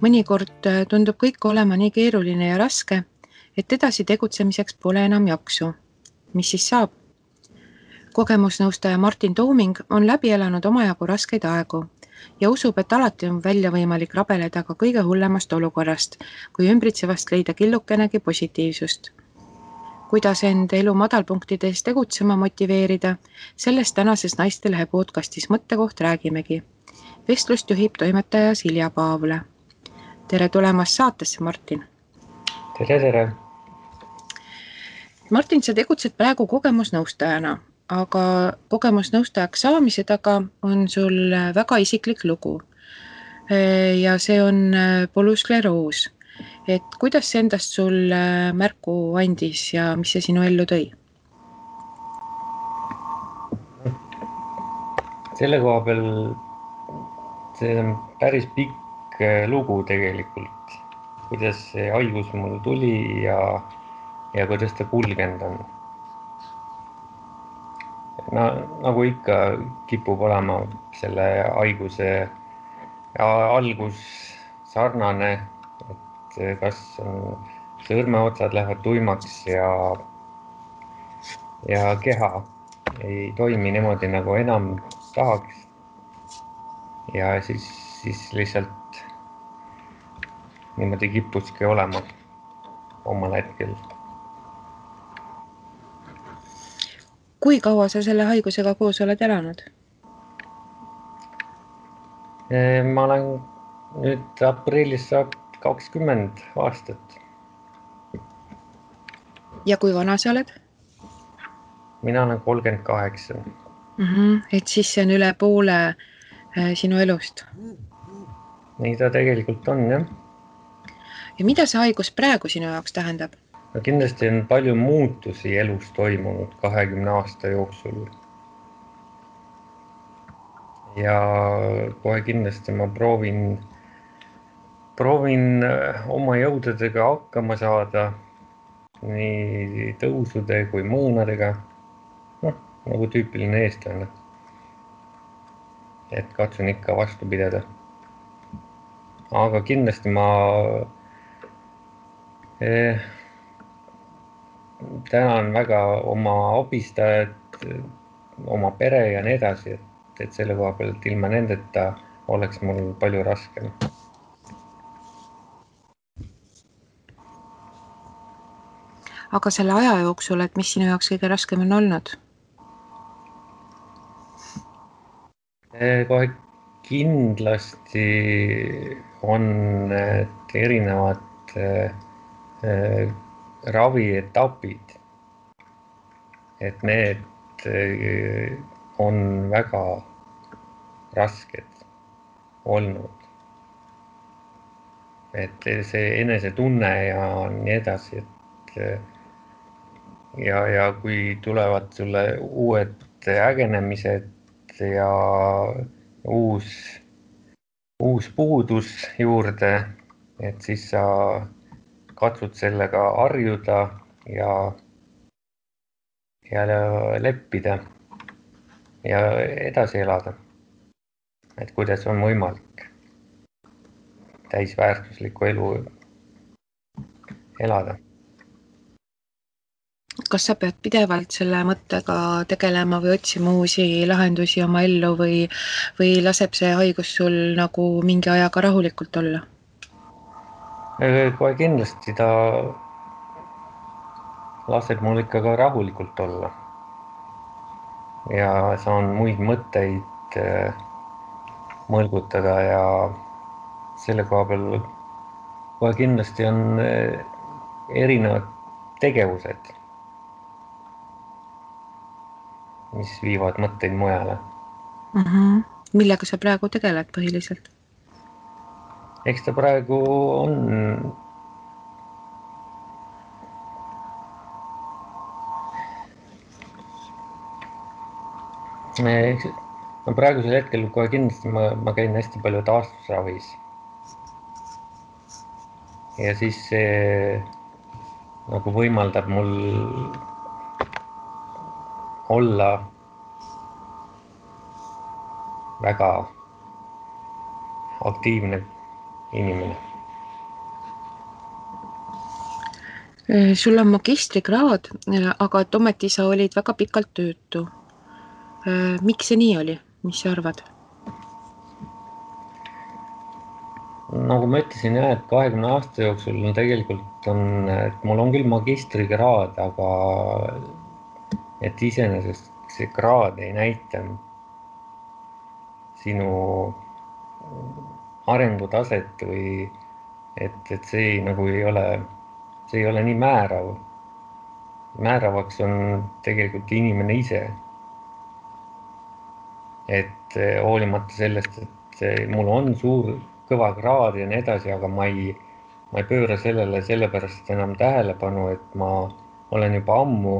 Mõnikord tundub kõik olema nii keeruline ja raske, et edasi tegutsemiseks pole enam jaksu. Mis siis saab? Kogemusnõustaja Martin Tooming on läbi elanud omajagu raskeid aegu ja usub, et alati on välja võimalik rabeleda ka kõige hullemast olukorrast, kui ümbritsevast leida killukenegi positiivsust. Kuidas end elu madalpunktides tegutsema motiveerida, sellest tänases Naistelehe podcastis Mõttekoht räägimegi. Vestlust juhib toimetaja Silja Paavle. Tere tulemast saatesse, Martin. Tere. Martin, sa tegutsed praegu kogemusnõustajana, aga kogemusnõustajaks saamise taga on sul väga isiklik lugu. Ja see on polüskleroos. Et kuidas see endast sul märku andis ja mis see sinu ellu tõi? Selle koha peal see on päris pikk lugu tegelikult, kuidas see haigus mul tuli ja kuidas ta kulgenud on. Nagu ikka kipub olema selle haiguse algus sarnane, et kas sõrmeotsad lähevad tuimaks ja keha ei toimi niimoodi nagu enam tahaks. Ja siis lihtsalt niimoodi kippuski olema omal hetkel. Kui kaua sa selle haigusega koos oled elanud? Ma olen nüüd aprillis saab 20 aastat. Ja kui vana sa oled? Mina olen 38. Et siis see on üle poole sinu elust. Nii ta tegelikult on, jah. Ja mida see haigus praegu sinu jaoks tähendab? Kindlasti on palju muutusi elus toimunud 20 aasta jooksul. Ja kohe kindlasti ma proovin oma jõududega hakkama saada nii tõusude kui mõõnadega. Nagu tüüpiline eestlane. Et katsun ikka vastu pidada. Aga kindlasti ma tänan väga oma abistajad, oma pere ja nii edasi, et selle koha pealt ilma nendeta oleks mul palju raskem. Aga selle aja jooksul, et mis sinu jaoks kõige raskem on olnud? Kohe kindlasti on erinevad ravietapid, et need on väga rasked olnud. Et see enesetunne ja nii edasi, ja kui tulevad sulle uued ägenemised ja uus puudus juurde, et siis sa katsud sellega harjuda ja leppida ja edasi elada. Et kuidas on võimalik täisväärtuslikku elu elada. Kas sa pead pidevalt selle mõttega tegelema või otsima uusi lahendusi oma ellu või laseb see haigus sul nagu mingi ajaga rahulikult olla? Kohe kindlasti ta laseb mul ikka ka rahulikult olla. Ja saan muid mõtteid mõlgutada ja selle koha peal kohe kindlasti on erinevad tegevused, mis viivad mõtteid mujale. Millega sa praegu tegeled põhiliselt? Eks ta praegu on praegusel hetkel kohe kindlasti ma käin hästi palju taastusravis. Ja siis see nagu võimaldab mul olla väga aktiivne inimene. Sul on magistrikraad, aga et ometi sa olid väga pikalt töötu. Miks see nii oli? Mis sa arvad? Nagu ma ütlesin jah, et 20 aasta jooksul on tegelikult et mul on küll magistrikraad, aga et iseenesest see kraad ei näita sinu arengutaset või et see nagu see ei ole nii määrav. Määravaks on tegelikult inimene ise. Et hoolimata sellest, et mul on suur kõva kraad ja nii edasi, aga ma ei pööra sellele sellepärast enam tähelepanu, et ma olen juba ammu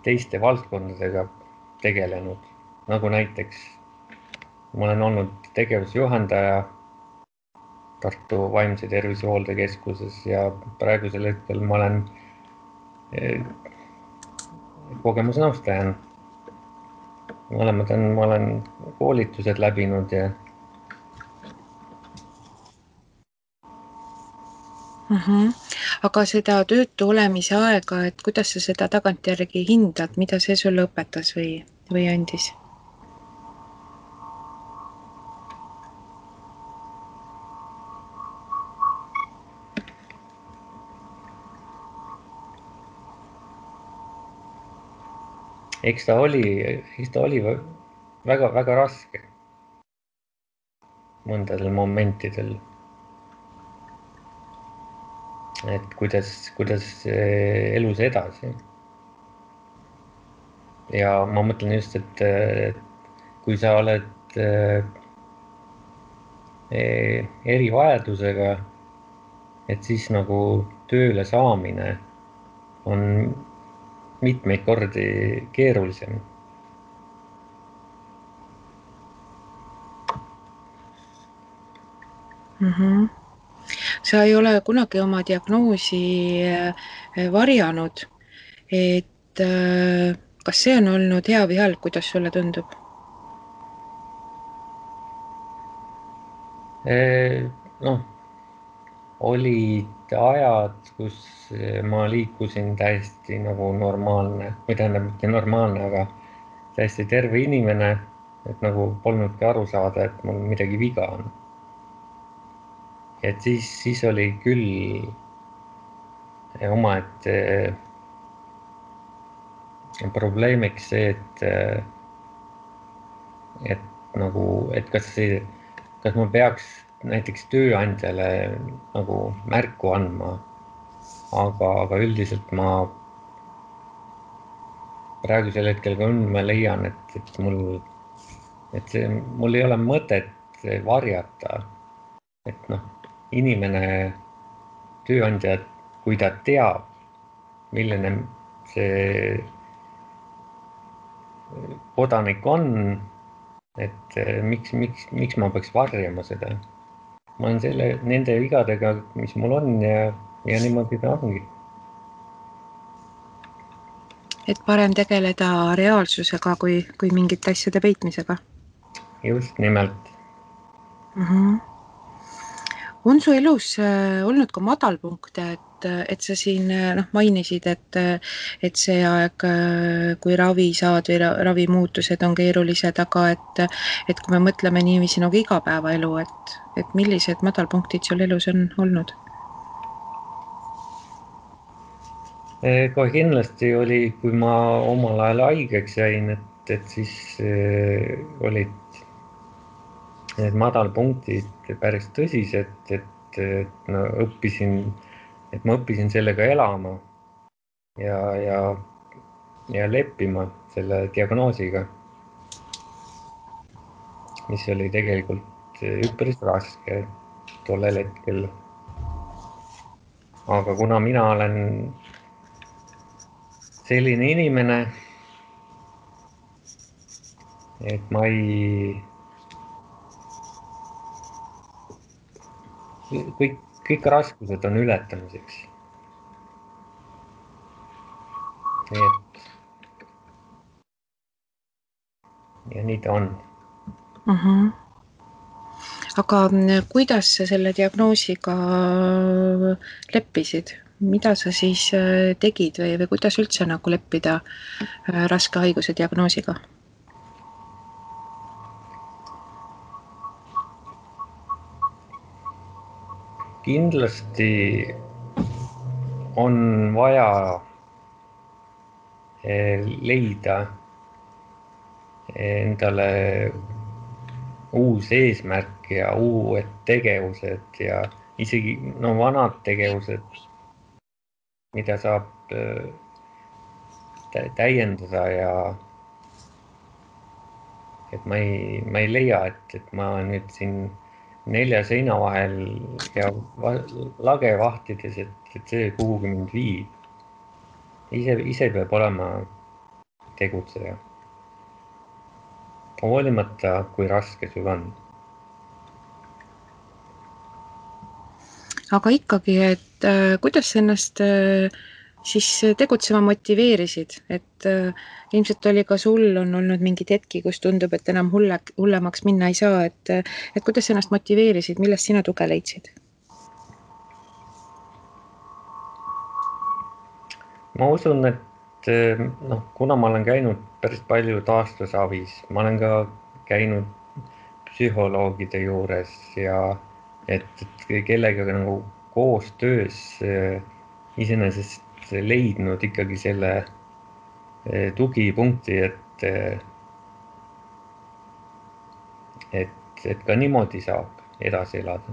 teiste valdkondadega tegelenud. Nagu näiteks ma olen olnud tegevusjuhendaja Tartu Vaimse Tervise Hooldekeskuses ja praegusel hetkel ma olen kogemusnõustaja. Ma olen koolitused läbinud ja Aga seda töötu olemise aega, et kuidas sa seda tagantjärgi hindad, mida see sulle õpetas või andis? eks ta oli väga raske mõndadel momentidel. Et kuidas elus edasi. Ja ma mõtlen just, et kui sa oled erivajadusega, et siis nagu tööle saamine on mitmeid kordi keerulisem. Sa ei ole kunagi oma diagnoosi varjanud, et kas see on olnud hea või halb, kuidas sulle tundub? Noh, olid ajad, kus ma liikusin täiesti nagu normaalne, või tähendab mitte normaalne, aga täiesti terve inimene, et nagu polnudki aru saada, et mul midagi viga on. Et siis oli küll omaette probleemiks see, et kas ma peaks näiteks tööandjale nagu märku andma, aga üldiselt ma praegusel hetkel ka ma leian, et mul ei ole mõtet varjata, et noh, inimene, tööandja, kui ta teab, milline see kodanik on, et miks ma peaks varjama seda. Ma olen nende vigadega, mis mul on ja niimoodi ta ongi. Et parem tegeleda reaalsusega kui mingite asjade peitmisega. Just nimelt. On su elus olnud ka madalpunkte, et sa siin mainisid, et see aeg, kui ravi saad või ravimuutused on keerulised, aga et kui me mõtleme niiviisi nagu igapäevaelu, et millised madalpunktid sul elus on olnud? Kohe kindlasti oli, kui ma omal ajal haigeks jäin, et siis olid need madalpunktid päris tõsised, et ma õppisin sellega elama ja leppima selle diagnoosiga, mis oli tegelikult üpris raske tollel hetkel. Aga kuna mina olen selline inimene, et ma kõik raskused on ületamiseks. Nii et ja nii ta on. Aga kuidas sa selle diagnoosiga leppisid? Mida sa siis tegid või kuidas üldse nagu leppida raske haiguse diagnoosiga? Kindlasti on vaja leida endale uus eesmärk ja uued tegevused ja isegi vanad tegevused, mida saab täiendada ja et ma ei leia, et ma nüüd siin 4 seina vahel ja lage vahtides, et see kuhugi mind viib. Ise peab olema tegutseja. Hoolimata, kui raske sul on. Aga ikkagi, et kuidas ennast siis tegutsema motiveerisid, et ilmselt oli ka sul on olnud mingid hetki, kus tundub, et enam hullemaks minna ei saa, et kuidas ennast motiveerisid, millest sina tuge leidsid? Ma usun, et kuna ma olen käinud päris palju taastusavis, ma olen ka käinud psühholoogide juures ja et kellega nagu koostöös iseenesest leidnud ikkagi selle tugipunkti, et ka niimoodi saab edasi elada.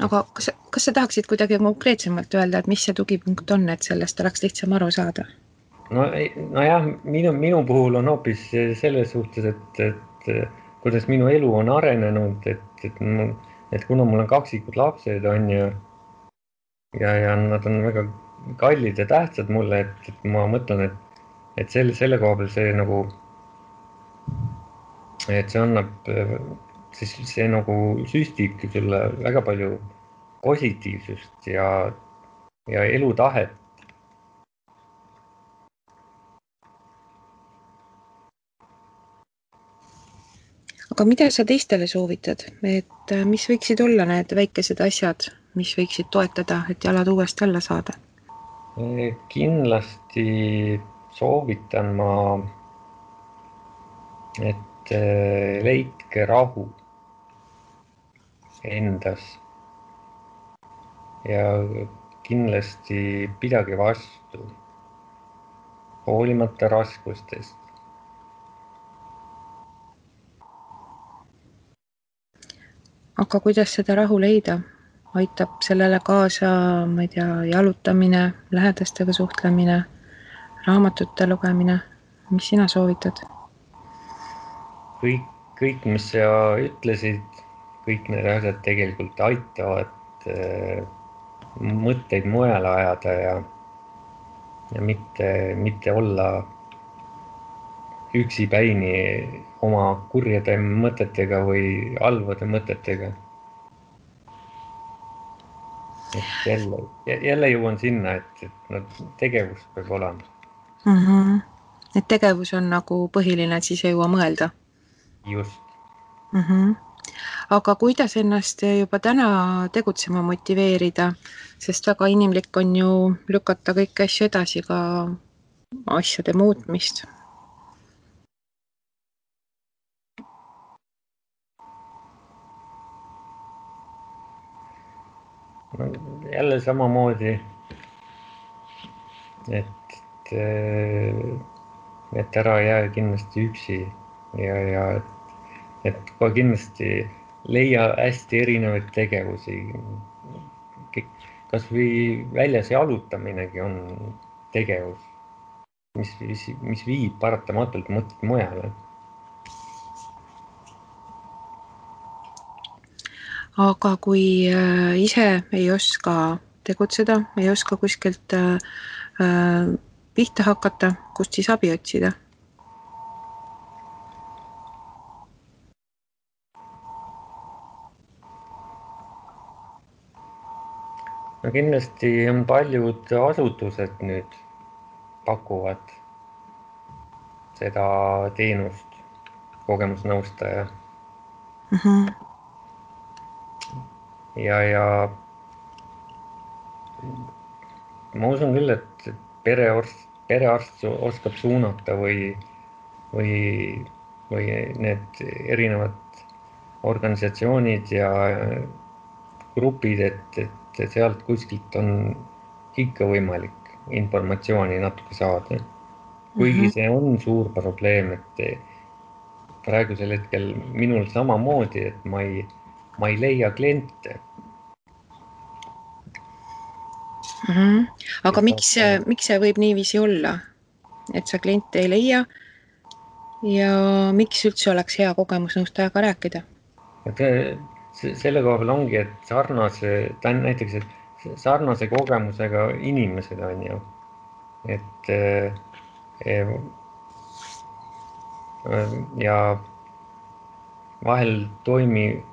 Aga kas sa tahaksid kuidagi konkreetsemalt öelda, et mis see tugipunkt on, et sellest oleks lihtsam aru saada? Nojah, minu puhul on hoopis selles suhtes, et kuidas minu elu on arenenud, et kuna mul on kaksikud lapsed on ja nad on väga kallid ja tähtsad mulle, et ma mõtlen, et selle koha peal see nagu, et see annab, siis see nagu süstibki sulle väga palju positiivsust ja elutahet. Aga mida sa teistele soovitad, et mis võiksid olla need väikesed asjad, mis võiksid toetada, et jalad uuesti alla saada? Kindlasti soovitan ma, et leidke rahu endas ja kindlasti pidage vastu, hoolimata raskustest. Aga kuidas seda rahu leida? Aitab sellele kaasa, ma ei tea, jalutamine, lähedastega suhtlemine, raamatute lugemine, mis sina soovitad? Kõik, mis sa ütlesid, kõik need asjad tegelikult aitavad mõtteid mujale ajada ja mitte olla üksipäini oma kurjade mõtetega või halvade mõtetega. Et jälle jõuan sinna, et tegevus peab olema. Et tegevus on nagu põhiline, et siis ei jõua mõelda. Just. Aga kuidas ennast juba täna tegutsema motiveerida, sest väga inimlik on ju lükata kõiki asju edasi, ka asjade muutmist. Jälle samamoodi, et ära jää kindlasti üksi ja et ka kindlasti leia hästi erinevaid tegevusi. Kas või väljas jalutaminegi on tegevus, mis viib paratamatult mõtted mujale. Aga kui ise ei oska tegutseda, ei oska kuskilt pihta hakata, kust siis abi otsida? No kindlasti on paljud asutused nüüd pakuvad seda teenust kogemusnõustaja. ja ma usun küll, et perearst oskab suunata või need erinevad organisatsioonid ja grupid, et sealt kuskilt on ikka võimalik informatsiooni natuke saada. Kuigi see on suur probleem, et praegusel hetkel minul samamoodi, et ma ei leia kliente. Aga miks see võib niiviisi olla, et sa kliente ei leia ja miks üldse oleks hea kogemusnõustajaga rääkida? Et selle koha peal ongi, et näiteks sarnase kogemusega inimesed on ju, et ja vahel toimuv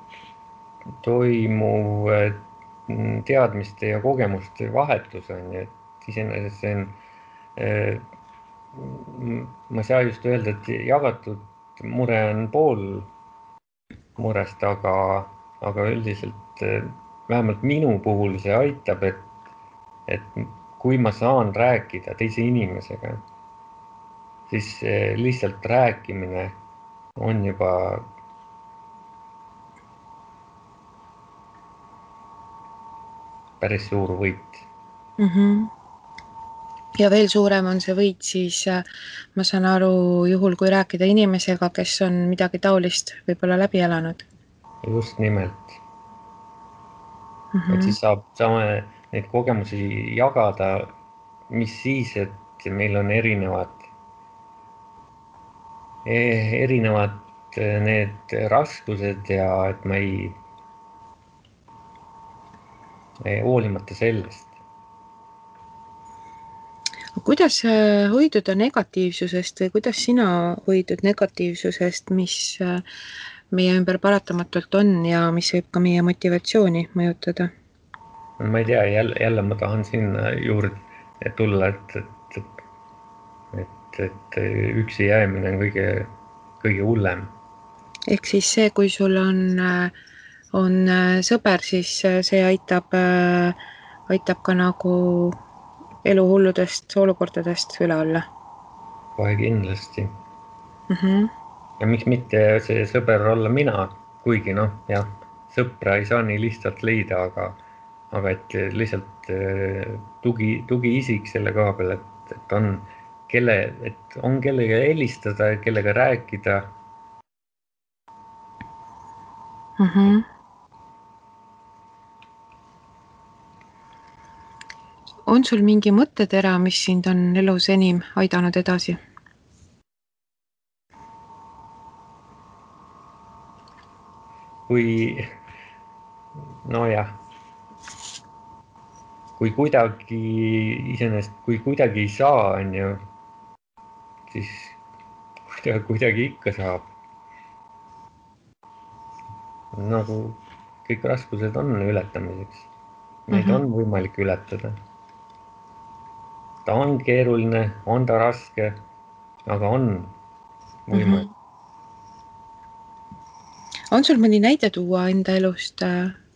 teadmiste ja kogemuste vahetus on ju, et iseenesest see on, ma ei saa just öelda, et jagatud mure on pool murest, aga üldiselt vähemalt minu puhul see aitab, et kui ma saan rääkida teise inimesega, siis lihtsalt rääkimine on juba päris suur võit. Ja veel suurem on see võit siis, ma saan aru, juhul kui rääkida inimesega, kes on midagi taolist võib-olla läbi elanud. Just nimelt. Et siis saame neid kogemusi jagada, mis siis, et meil on erinevad need raskused ja et ma ei hoolimata sellest. Kuidas hoiduda negatiivsusest või kuidas sina hoidud negatiivsusest, mis meie ümber paratamatult on ja mis võib ka meie motivatsiooni mõjutada? Ma ei tea, jälle ma tahan sinna juurde tulla, et üksi jäämine on kõige hullem. Ehk siis see, kui sul on sõber, siis see aitab ka nagu eluhulludest olukordadest üle olla. Kohe kindlasti. Ja miks mitte see sõber olla mina, kuigi jah, sõpra ei saa nii lihtsalt leida, aga et lihtsalt tugiisik selle koha peal, et on kellega helistada, kellega rääkida. On sul mingi mõttetera, mis sind on elus enim aidanud edasi? Kui kuidagi ei saa, on ju, siis kuidagi ikka saab. Nagu kõik raskused on ületamiseks. Neid on võimalik ületada. Ta on keeruline, on ta raske, aga on võimalik. On sul mõni näide tuua enda elust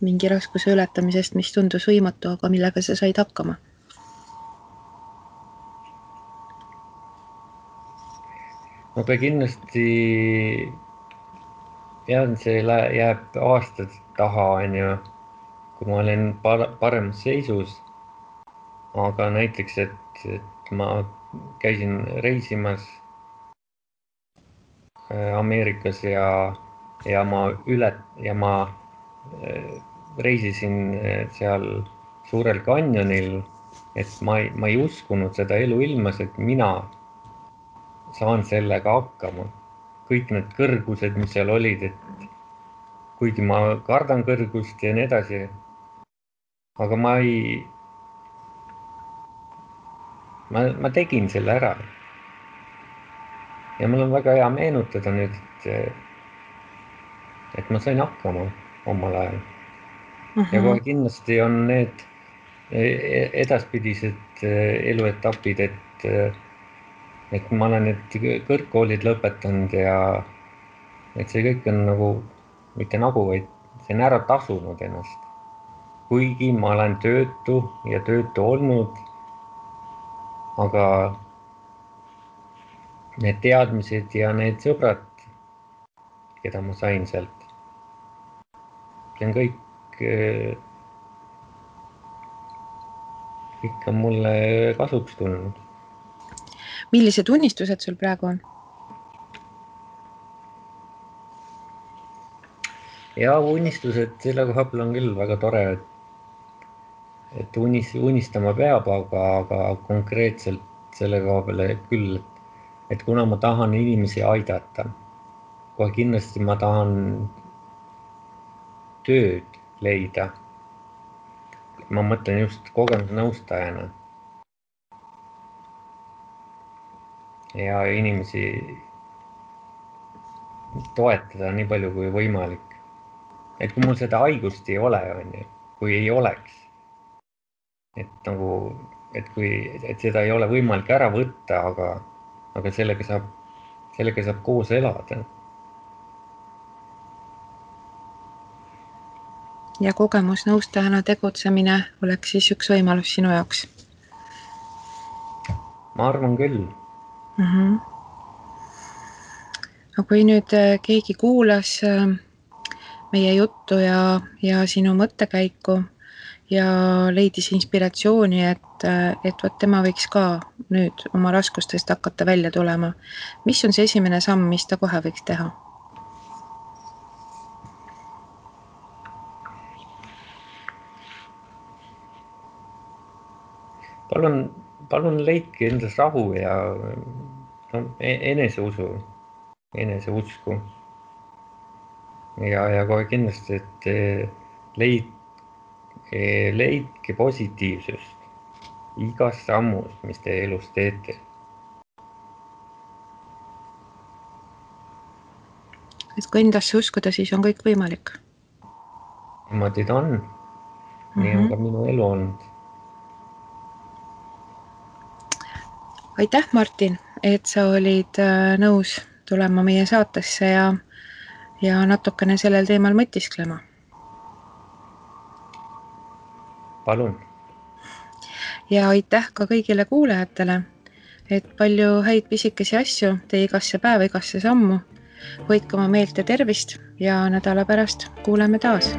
mingi raskuse ületamisest, mis tundus võimatu, aga millega sa said hakkama? No ta kindlasti see jääb aastad taha, on ju, kui ma olen paremas seisus. Aga näiteks, et ma käisin reisimas Ameerikas ja ma reisisin seal Suurel kanjonil, et ma ei uskunud seda eluilmas, et mina saan sellega hakkama. Kõik need kõrgused, mis seal olid, et kuigi ma kardan kõrgust ja nii edasi, aga ma tegin selle ära. Ja mul on väga hea meenutada nüüd, et ma sain hakkama omal ajal. Ja kohe kindlasti on need edaspidised eluetapid, et ma olen need kõrgkoolid lõpetanud et see kõik on nagu, mitte nagu, vaid see on ära tasunud ennast. Kuigi ma olen töötu ja töötu olnud, aga need teadmised ja need sõbrad, keda ma sain sealt, see on kõik on mulle kasuks tulnud. Millised unistused sul praegu on? Ja unistused selle koha peal on küll väga tore, et unistama peab, aga konkreetselt selle koha peale küll, et kuna ma tahan inimesi aidata, kohe kindlasti ma tahan tööd leida. Ma mõtlen just kogemusnõustajana ja inimesi toetada nii palju kui võimalik. Et kui mul seda haigust ei ole, kui ei oleks, et seda ei ole võimalik ära võtta, aga sellega saab koos elada. Ja kogemusnõustajana tegutsemine oleks siis üks võimalus sinu jaoks? Ma arvan küll. Aga kui nüüd keegi kuulas meie juttu ja sinu mõttekäiku ja leidis inspiratsiooni, et võt tema võiks ka nüüd oma raskustest hakata välja tulema, mis on see esimene samm, mis ta kohe võiks teha? Palun leidke endas rahu ja eneseusu, eneseusku. Ja kohe kindlasti, et leidke positiivsust igas sammus, mis te elus teete. Et kui endasse uskuda, siis on kõik võimalik. Niimoodi ta on. Nii on ka minu elu olnud. Aitäh, Martin, et sa olid nõus tulema meie saatesse ja natukene sellel teemal mõtisklema. Palun. Ja aitäh ka kõigile kuulajatele, et palju häid pisikesi asju tee igasse päeva, igasse sammu. Hoidke oma meelt ja tervist ja nädala pärast kuuleme taas.